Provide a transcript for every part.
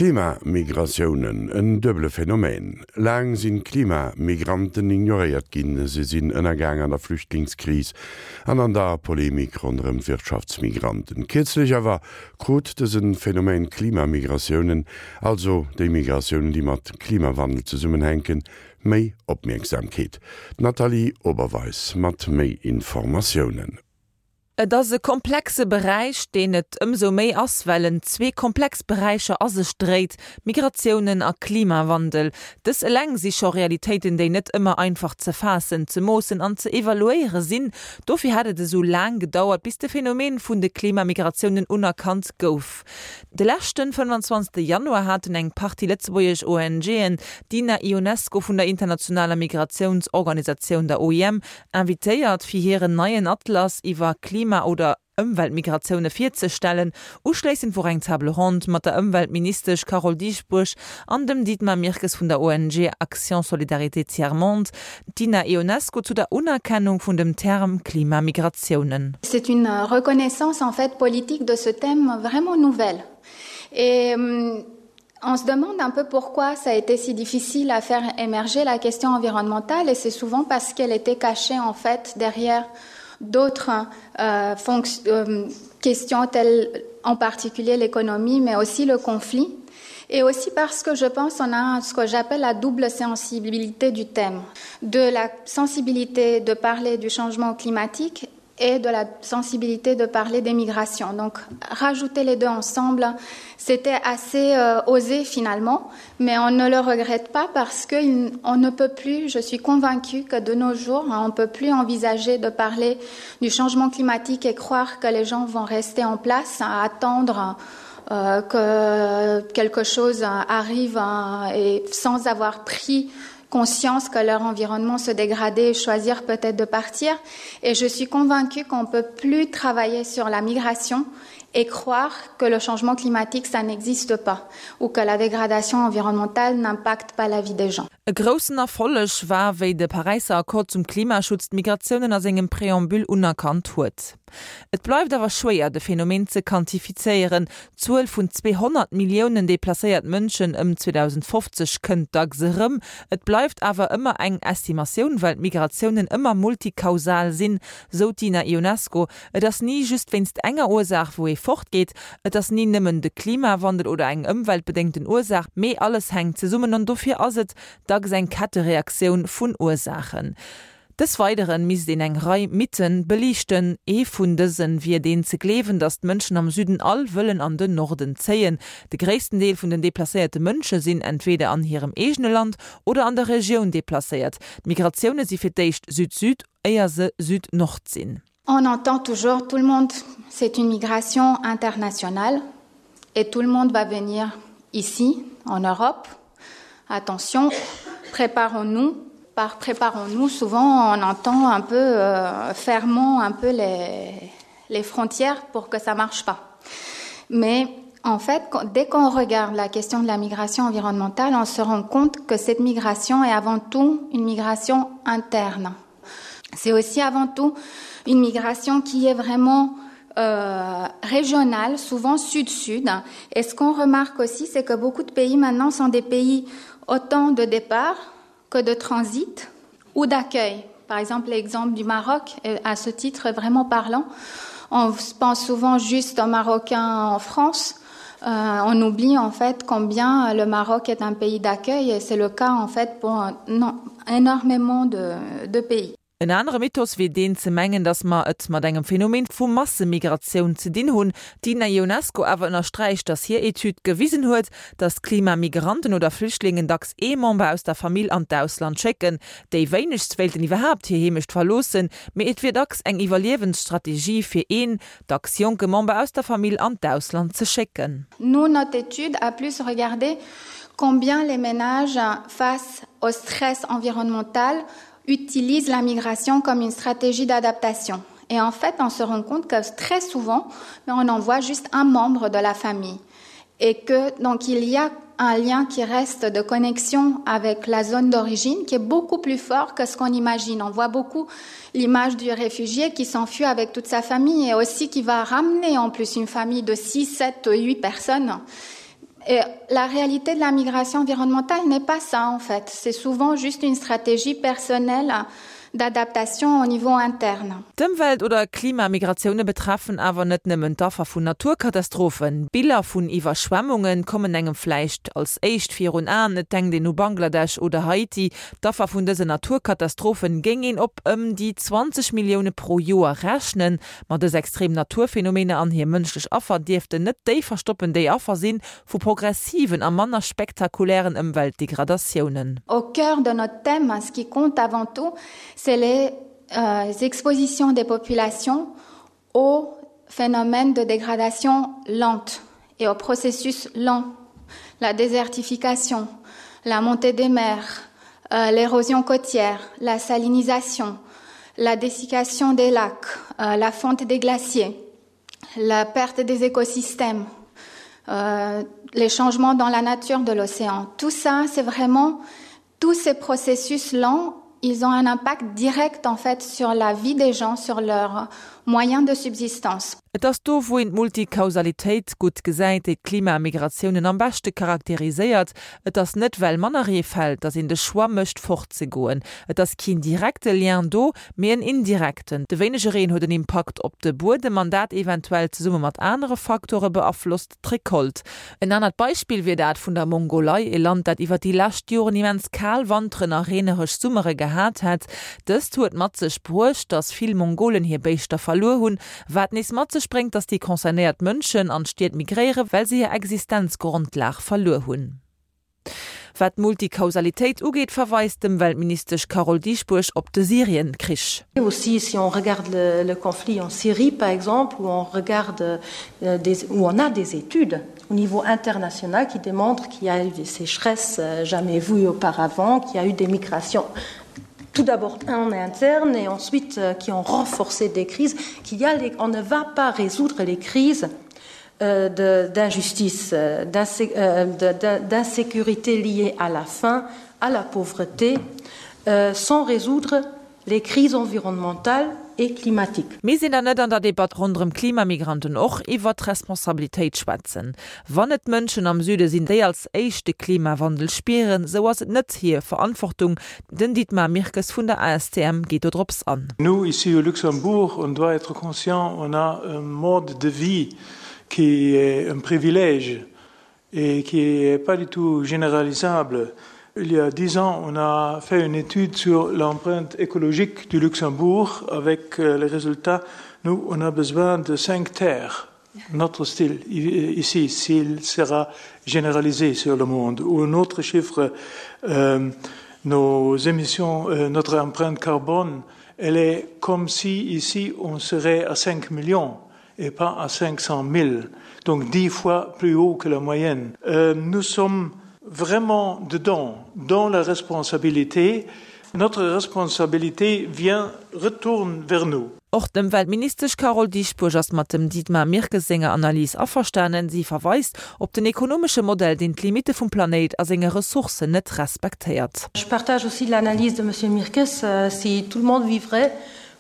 Klimamigratiounen, en duebele Phänomen. Laang sinn d'Klimamigranten ignoréiert ginn. Se sinn ënnergaang an der Flüchtlingskris an an der Polemik ronderëm d'Wirtschaftsmigranten. Kierzlech awer krut dëse Phänomen Klimamigratiounen, also déi Migratiounen, déi mat Klimawandel zesummenhänken, méi Opmierksamkeet. D'Nathalie Oberweis mat méi Informatiounen. Et ass e komplexe Beräich, deen et ëmsou méi ass, well en zwee komplex Beräicher a sech dréit, Migratiounen a Klimawandel. Dës eleng si scho Realitéiten, déi net ëmmer einfach ze faassen, ze moossen an ze evaluéiere sinn. Dofir hätt et esou laang gedauert, bis de Phänomen vun de Klimamigratiounen unerkannt gouf. De leschten 25 Januar haten eng Partie lëtzebuergesch ONGen d'Ina Ionesco vun der internationaler Migratiounsorganisatioun, der OIM, invitéiert, fir hiren neien Atlas iwwer Klima oder Ëmweltmigratioune virzestellen. Uschléissend wor eng Table ronde mat der Ëmweltministesch Carole Dieschbourg an dem Dietmar Mirkes vun der ONG Action Solidarité Tiers Monde, d'Ina Ionesco zu der Unerkennung vun dem Term Klimamigratiounen. C'est une reconnaissance en fait politique de ce thème vraiment nouvelle et on se demande un peu pourquoi ça a été si difficile à faire émerger la question environnementale et c'est souvent parce qu'elle était cachée en fait derrière d'autres euh, euh, questions telles en particulier l'économie mais aussi le conflit et aussi parce que je pense on a ce que j'appelle la double sensibilité du thème de la sensibilité de parler du changement climatique et de la sensibilité de parler des migrations. Donc rajouter les deux ensemble, c'était assez euh, osé finalement, mais on ne le regrette pas parce qu'on ne peut plus, je suis convaincue que de nos jours, on ne peut plus envisager de parler du changement climatique et croire que les gens vont rester en place à attendre euh, que quelque chose arrive et sans avoir pris conscience que leur environnement se dégradait et choisir peut-être de partir. Et je suis convaincue qu'on ne peut plus travailler sur la migration et croire que le changement climatique ça n'existe pas ou que la dégradation environnementale n'impacte pas la vie des gens. E groussen Erfolleg war, wéi de Paräisser Accord zum Klimaschutz d'Migratiounen a sengem Préambule unerkannt huet. Et bleift awer schwéier, de Phänomen ze quantifizéieren. D'Zuel vun 200 Milliounen deplacéiert Mënschen ëm 2050 kënnt dacks erëm. Et bleift awer ëmmer eng Estimatioun, well d'Migratiounen ëmmer multikausal sinn, sou d'Ina Ionesco. Et ass ni just wéinst enger Ursaach, wou ee fortgeet. Et ass ni nëmmen de Klimawandel oder eng ëmweltbedéngten Ursaach, mee alles hänkt zesummen an dofir ass et dacks eng Kettereaktioun vun Ursaachen. Des Weideren misst een eng Rei Mythen beliichten. Ee vun dësen wier deen ze gleewen, datt d'Mënschen am Süden all wëllen an den Norden zéien. De gréissten Deel vun den deplacéierte Mënsche sinn entweder an hirem eegene Land oder an der Regioun deplacéiert. D'Migratioune si fir d'éischt Süd-Süd, éier se Süd-Nord sinn. On entend toujours tout le monde, c'est une migration internationale et tout le monde va venir ici en Europe. Attention, préparons-nous. Par préparons-nous, souvent on entend un peu euh, fermons un peu les, les frontières pour que ça marche pas. Mais en fait, dès qu'on regarde la question de la migration environnementale, on se rend compte que cette migration est avant tout une migration interne. C'est aussi avant tout une migration qui est vraiment euh, régionale, souvent sud-sud. Et ce qu'on remarque aussi, c'est que beaucoup de pays maintenant sont des pays autant de départ que de transit ou d'accueil. Par exemple, l'exemple du Maroc est à ce titre vraiment parlant. On pense souvent juste aux Marocains en France. Euh, on oublie en fait combien le Maroc est un pays d'accueil et c'est le cas en fait pour non, énormément de, de pays. En anere Mythos wier deen ze mengen, datt mer et mat engem Phänomen vu Massemigratioun ze dinn hunn. D'Ina Ionesco awer ënnersträicht, datt hir Etüd gewisen huet, datt Klimamigranten oder Flüchtlingen dacks ee Member aus der Famill an d'Ausland schécken. Déi wéinegst wéilten iwwerhaapt hir Heemecht verloossen, mee et wier dacks eng Iwwerliewensstrategie fir een, dacks jonke Member aus der Famill an d'Ausland ze schécken. Nous, notre étude a plus regardé combien les ménages face au stress environnemental utilisent la migration comme une stratégie d'adaptation. Et en fait, on se rend compte que très souvent, on envoie juste un membre de la famille et que donc il y a un lien qui reste de connexion avec la zone d'origine qui est beaucoup plus fort que ce qu'on imagine. On voit beaucoup l'image du réfugié qui s'enfuit avec toute sa famille et aussi qui va ramener en plus une famille de 6, 7, 8 personnes. Et la réalité de la migration environnementale n'est pas ça en fait. C'est souvent juste une stratégie personnelle d'adaptation au niveau interne. D'Ëmwelt oder Klimamigratioune betreffen awer net nëmmen d'Affer vun Naturkatastrophen. Biller vun Iwwerschwemmunge kommen engem vläicht als éischt virun Aen, et denkt een u Bangladesch oder Haiti. D'Affer vun dësen Naturkatastrophen géing een op ëm déi 20 Millioune pro Joer rechnen. Ma dës extrem Naturphenomener an hir mënschlech Affer dierften net déi verstoppen, déi Affer si vu progressiven a manner spektakulären Ëmweltdegradatiounen. Au cœur de notre thème, ce qui compte avant tout, c'est les euh, expositions des populations aux phénomènes de dégradation lente et au processus lent, la désertification, la montée des mers, euh, l'érosion côtière, la salinisation, la dessiccation des lacs, euh, la fonte des glaciers, la perte des écosystèmes, euh, les changements dans la nature de l'océan. Tout ça, c'est vraiment tous ces processus lents, ils ont un impact direct en fait sur la vie des gens, sur leurs moyens de subsistance. Et ass do, wou een d'Multikausalitéit gutt gesäit, déi d'Klimamigratiounen am beschte charakteriséiert. Et ass net well manner Ree fält, datt een de Choix mécht fortzegoen. Et ass keen direkte Lien do, mee en indirekten. De wéinege Reen huet en Impakt op de Buedem an dat eventuell zesumme mat anere Faktore beaflosst d'Recolte. En anert Beispill wier dat vun der Mongolei, e Land dat iwwer déi lescht Joren immens kal Wanteren a reeneresch Summere gehat hätt. Dëst huet mat sech bruecht, datt vill Mongolen hir Béischter verluer hunn, wat nees mat sech bréngt, datt déi concernéiert Mënschen an d'Stied migréieren, well se hir Existenzgrondlag verluer hunn. Wat d'Multikausalitéit ugeet, verweist d'Ëmweltministesch Carole Dieschbourg op de Syrien-Krich. Aussi si on regarde le, le conflit en Syrie par exemple où on regarde euh, des, où on a des études au niveau international qui démontrent qu'il y a eu des sécheresses euh, jamais vues auparavant, qu'il y a eu des migrations tout d'abord en interne et ensuite euh, qui ont renforcé des crises, qu'il y a les, on ne va pas résoudre les crises euh, d'injustice, euh, euh, d'insécurité liée à la faim, à la pauvreté, euh, sans résoudre les crises environnementales et climatiques. Misst een dann net an der Debatt ronderëm Klimamigranten och iwwert Responsabilitéit schwätzen? Wann et d'Mënschen am Süde sinn, déi als éischt de Klimawandel spieren, sou ass et net hir Verantwortung. Den Dietmar Mirkes vun der ASTM geet do drops an. Nous, ici au Luxembourg, on doit être conscient, on a un mode de vie qui est un privilège et qui est pas du tout généralisable. Il y a dix ans, on a fait une étude sur l'empreinte écologique du Luxembourg avec euh, les résultats. Nous, on a besoin de cinq terres notre style ici s'il sera généralisé sur le monde ou un autre chiffre euh, nos émissions euh, notre empreinte carbone elle est comme si ici on serait à 5 millions et pas à 500 000 donc dix fois plus haut que la moyenne euh, nous sommes vraiment dedans dans la responsabilité notre responsabilité vient retourne vers nous. Och d'Ëmweltministesch Carole Dieschbourg ass mat dem Dietmar Mirkes senger Analys averstanen. Si verweist op den ekonomesche Modell, deen d'Limitte vum Planéit a senge Ressourcen net respektéiert. Je partage aussi l'analyse de Monsieur Mirkes, si tout le monde vivrait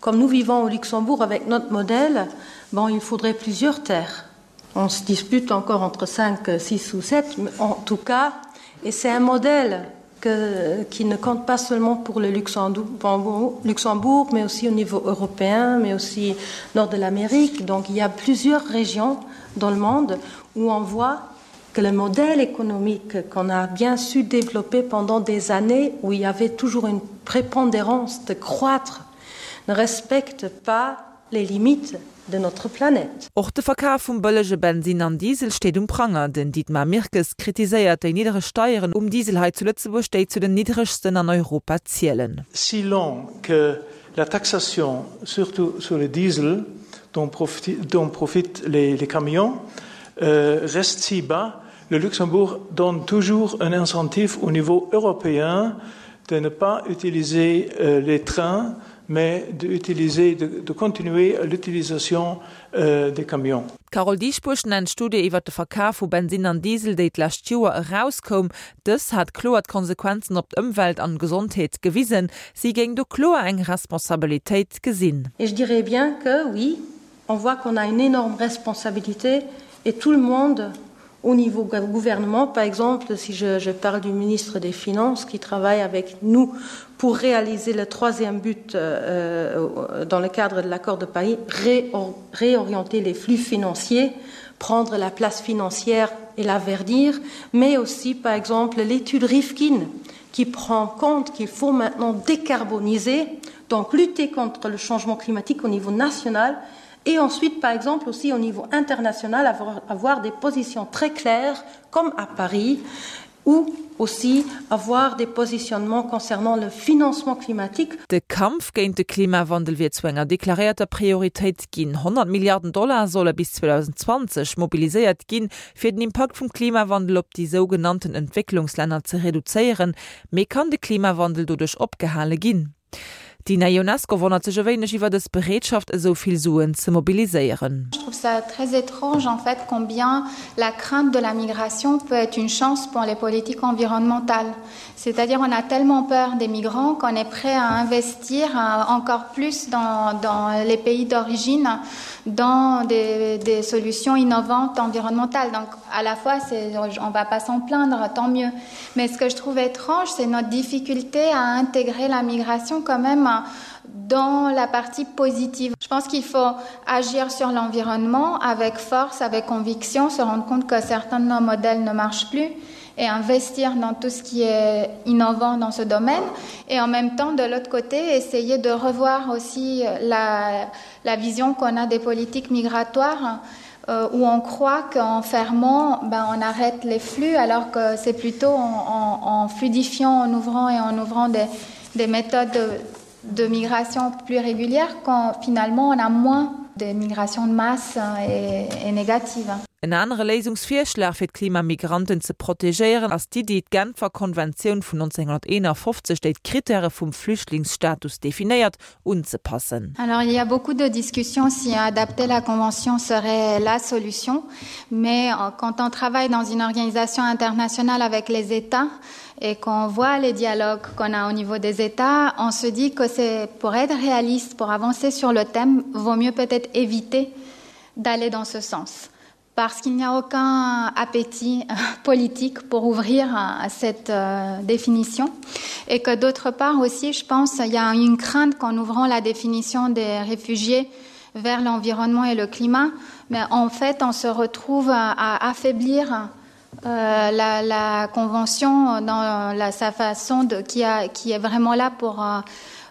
comme nous vivons au Luxembourg avec notre modèle, bon, il faudrait plusieurs terres. On se dispute encore entre 5, 6 ou 7, mais en tout cas, et c'est un modèle que, qui ne compte pas seulement pour le Luxembourg, Luxembourg, mais aussi au niveau européen, mais aussi nord de l'Amérique. Donc il y a plusieurs régions dans le monde où on voit que le modèle économique qu'on a bien su développer pendant des années où il y avait toujours une prépondérance de croître ne respecte pas les limites de notre planète. Och de Verkaf vum bëllege Bensinn an Diesel steet um Pranger. Den Dietmar Mirkes kritiséiert déi niddereg Steieren um Diesel hei zu Lëtzebuerg, déi zu den niddregsten an Europa zielen. Si lent que la taxation, surtout sur le diesel, dont profitent les camions, reste si bas, le Luxembourg donne toujours un incentive au niveau européen de ne pas utiliser les trains, mais d'utiliser, de, de continuer l'utilisation euh, des camions. D'Carole Dieschbourg nennt d'Studie iwwer de Verkaf vu Bensinn an Diesel, déi d'lescht Joer erauskoum. Dës hat kloer d'Konsequenzen op d'Ëmwelt an d'Gesondheet gewisen. Si géing do kloer eng Responsabilitéit gesinn. Et je dirais bien que oui, on voit qu'on a une énorme responsabilité et tout le monde. Au niveau gouvernement, par exemple, si je, je parle du ministre des Finances qui travaille avec nous pour réaliser le troisième but euh, euh dans le cadre de l'accord de Paris, réor réorienter les flux financiers, prendre la place financière et la verdir, mais aussi, par exemple, l'étude Rifkin qui prend compte qu'il faut maintenant décarboniser, donc lutter contre le changement climatique au niveau national et ensuite, par exemple, aussi au niveau international, avoir, avoir des positions très claires, comme à Paris, ou aussi avoir des positionnements concernant le financement climatique. De Kampf géint de Klimawandel wier zu enger deklaréierter Prioritéit ginn. 100 Milliarden Dollar solle bis 2020 mobiliséiert ginn, fir den Impakt vum Klimawandel op déi sougenannten Entwécklungslänner ze reduzéieren. Mee kann de Klimawandel doduerch opgehale ginn? D'Dina Ionesco wonnert sech e wéineg iwwer dës Bereetschaft, esou vill Suen ze mobiliséieren. Je trouve ça très étrange en fait combien la crainte de la migration peut être une chance pour les politiques environnementales. C'est-à-dire on a tellement peur des migrants qu'on est prêt à investir euh, encore plus dans, dans les pays d'origine dans des, des solutions innovantes environnementales. Donc à la fois on va pas s'en plaindre, tant mieux. Mais ce que je trouve étrange, c'est notre difficulté à intégrer la migration quand même dans la partie positive. Je pense qu'il faut agir sur l'environnement avec force, avec conviction, se rendre compte que certains de nos modèles ne marchent plus et investir dans tout ce qui est innovant dans ce domaine et en même temps de l'autre côté essayer de revoir aussi la, la vision qu'on a des politiques migratoires euh, où on croit qu'en fermant ben, on arrête les flux alors que c'est plutôt en, en, en fluidifiant en ouvrant et en ouvrant des, des méthodes de, de migration plus régulière quand finalement on a moins de migration de masse et, et négative. En anere Léisungsvirschlag fir d'Klimamigranten ze protegéieren ass d'Iddi, d'Genfer Konventioun vun 1951, déi d'Krittäre vum Flüchtlingsstatus definéiert, unzepassen. Alors il y a beaucoup de discussions si adapter la convention serait la solution, mais euh, quand on travaille dans une organisation internationale avec les États et qu'on voit les dialogues qu'on a au niveau des États, on se dit que c'est pour être réaliste, pour avancer sur le thème, vaut mieux peut-être éviter d'aller dans ce sens parce qu'il n'y a aucun appétit euh, politique pour ouvrir à cette euh, définition et que d'autre part aussi je pense il y a une crainte qu'en ouvrant la définition des réfugiés vers l'environnement et le climat mais en fait on se retrouve à, à affaiblir euh, la, la convention dans la, sa façon de qui a qui est vraiment là pour euh,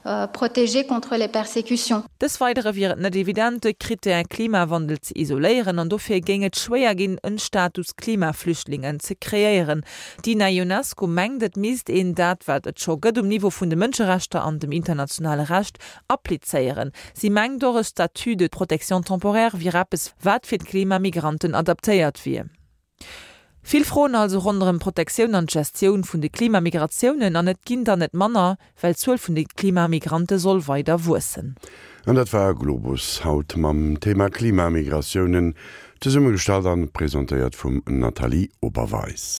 euh, protéger contre les persécutions. Des Weidere wier et net evident, de Krittär Klimawandel ze isoléieren an dofir géing et schwéier ginn, en Status Klimaflüchtlingen ze kreéieren. D'Dina Ionescu mengt, et misst een dat, wat et scho gëtt um Niveau vun de Mënscherechter an dem internationale Recht, applizéieren. Si mengt och, e Statut de protection temporaire wier eppes, wat fir d'Klimamigranten adaptéiert wier. Vill Froen also ronderëm d'Protektioun an d'Gestioun vun de Klimamigratiounen, an et ginn der net manner, well d'Zuel vun de Klimamigrante soll weider wuessen. An dat war Globus haut mam Thema Klimamigratiounen, zesummegestallt an presentéiert vum Nathalie Oberweis.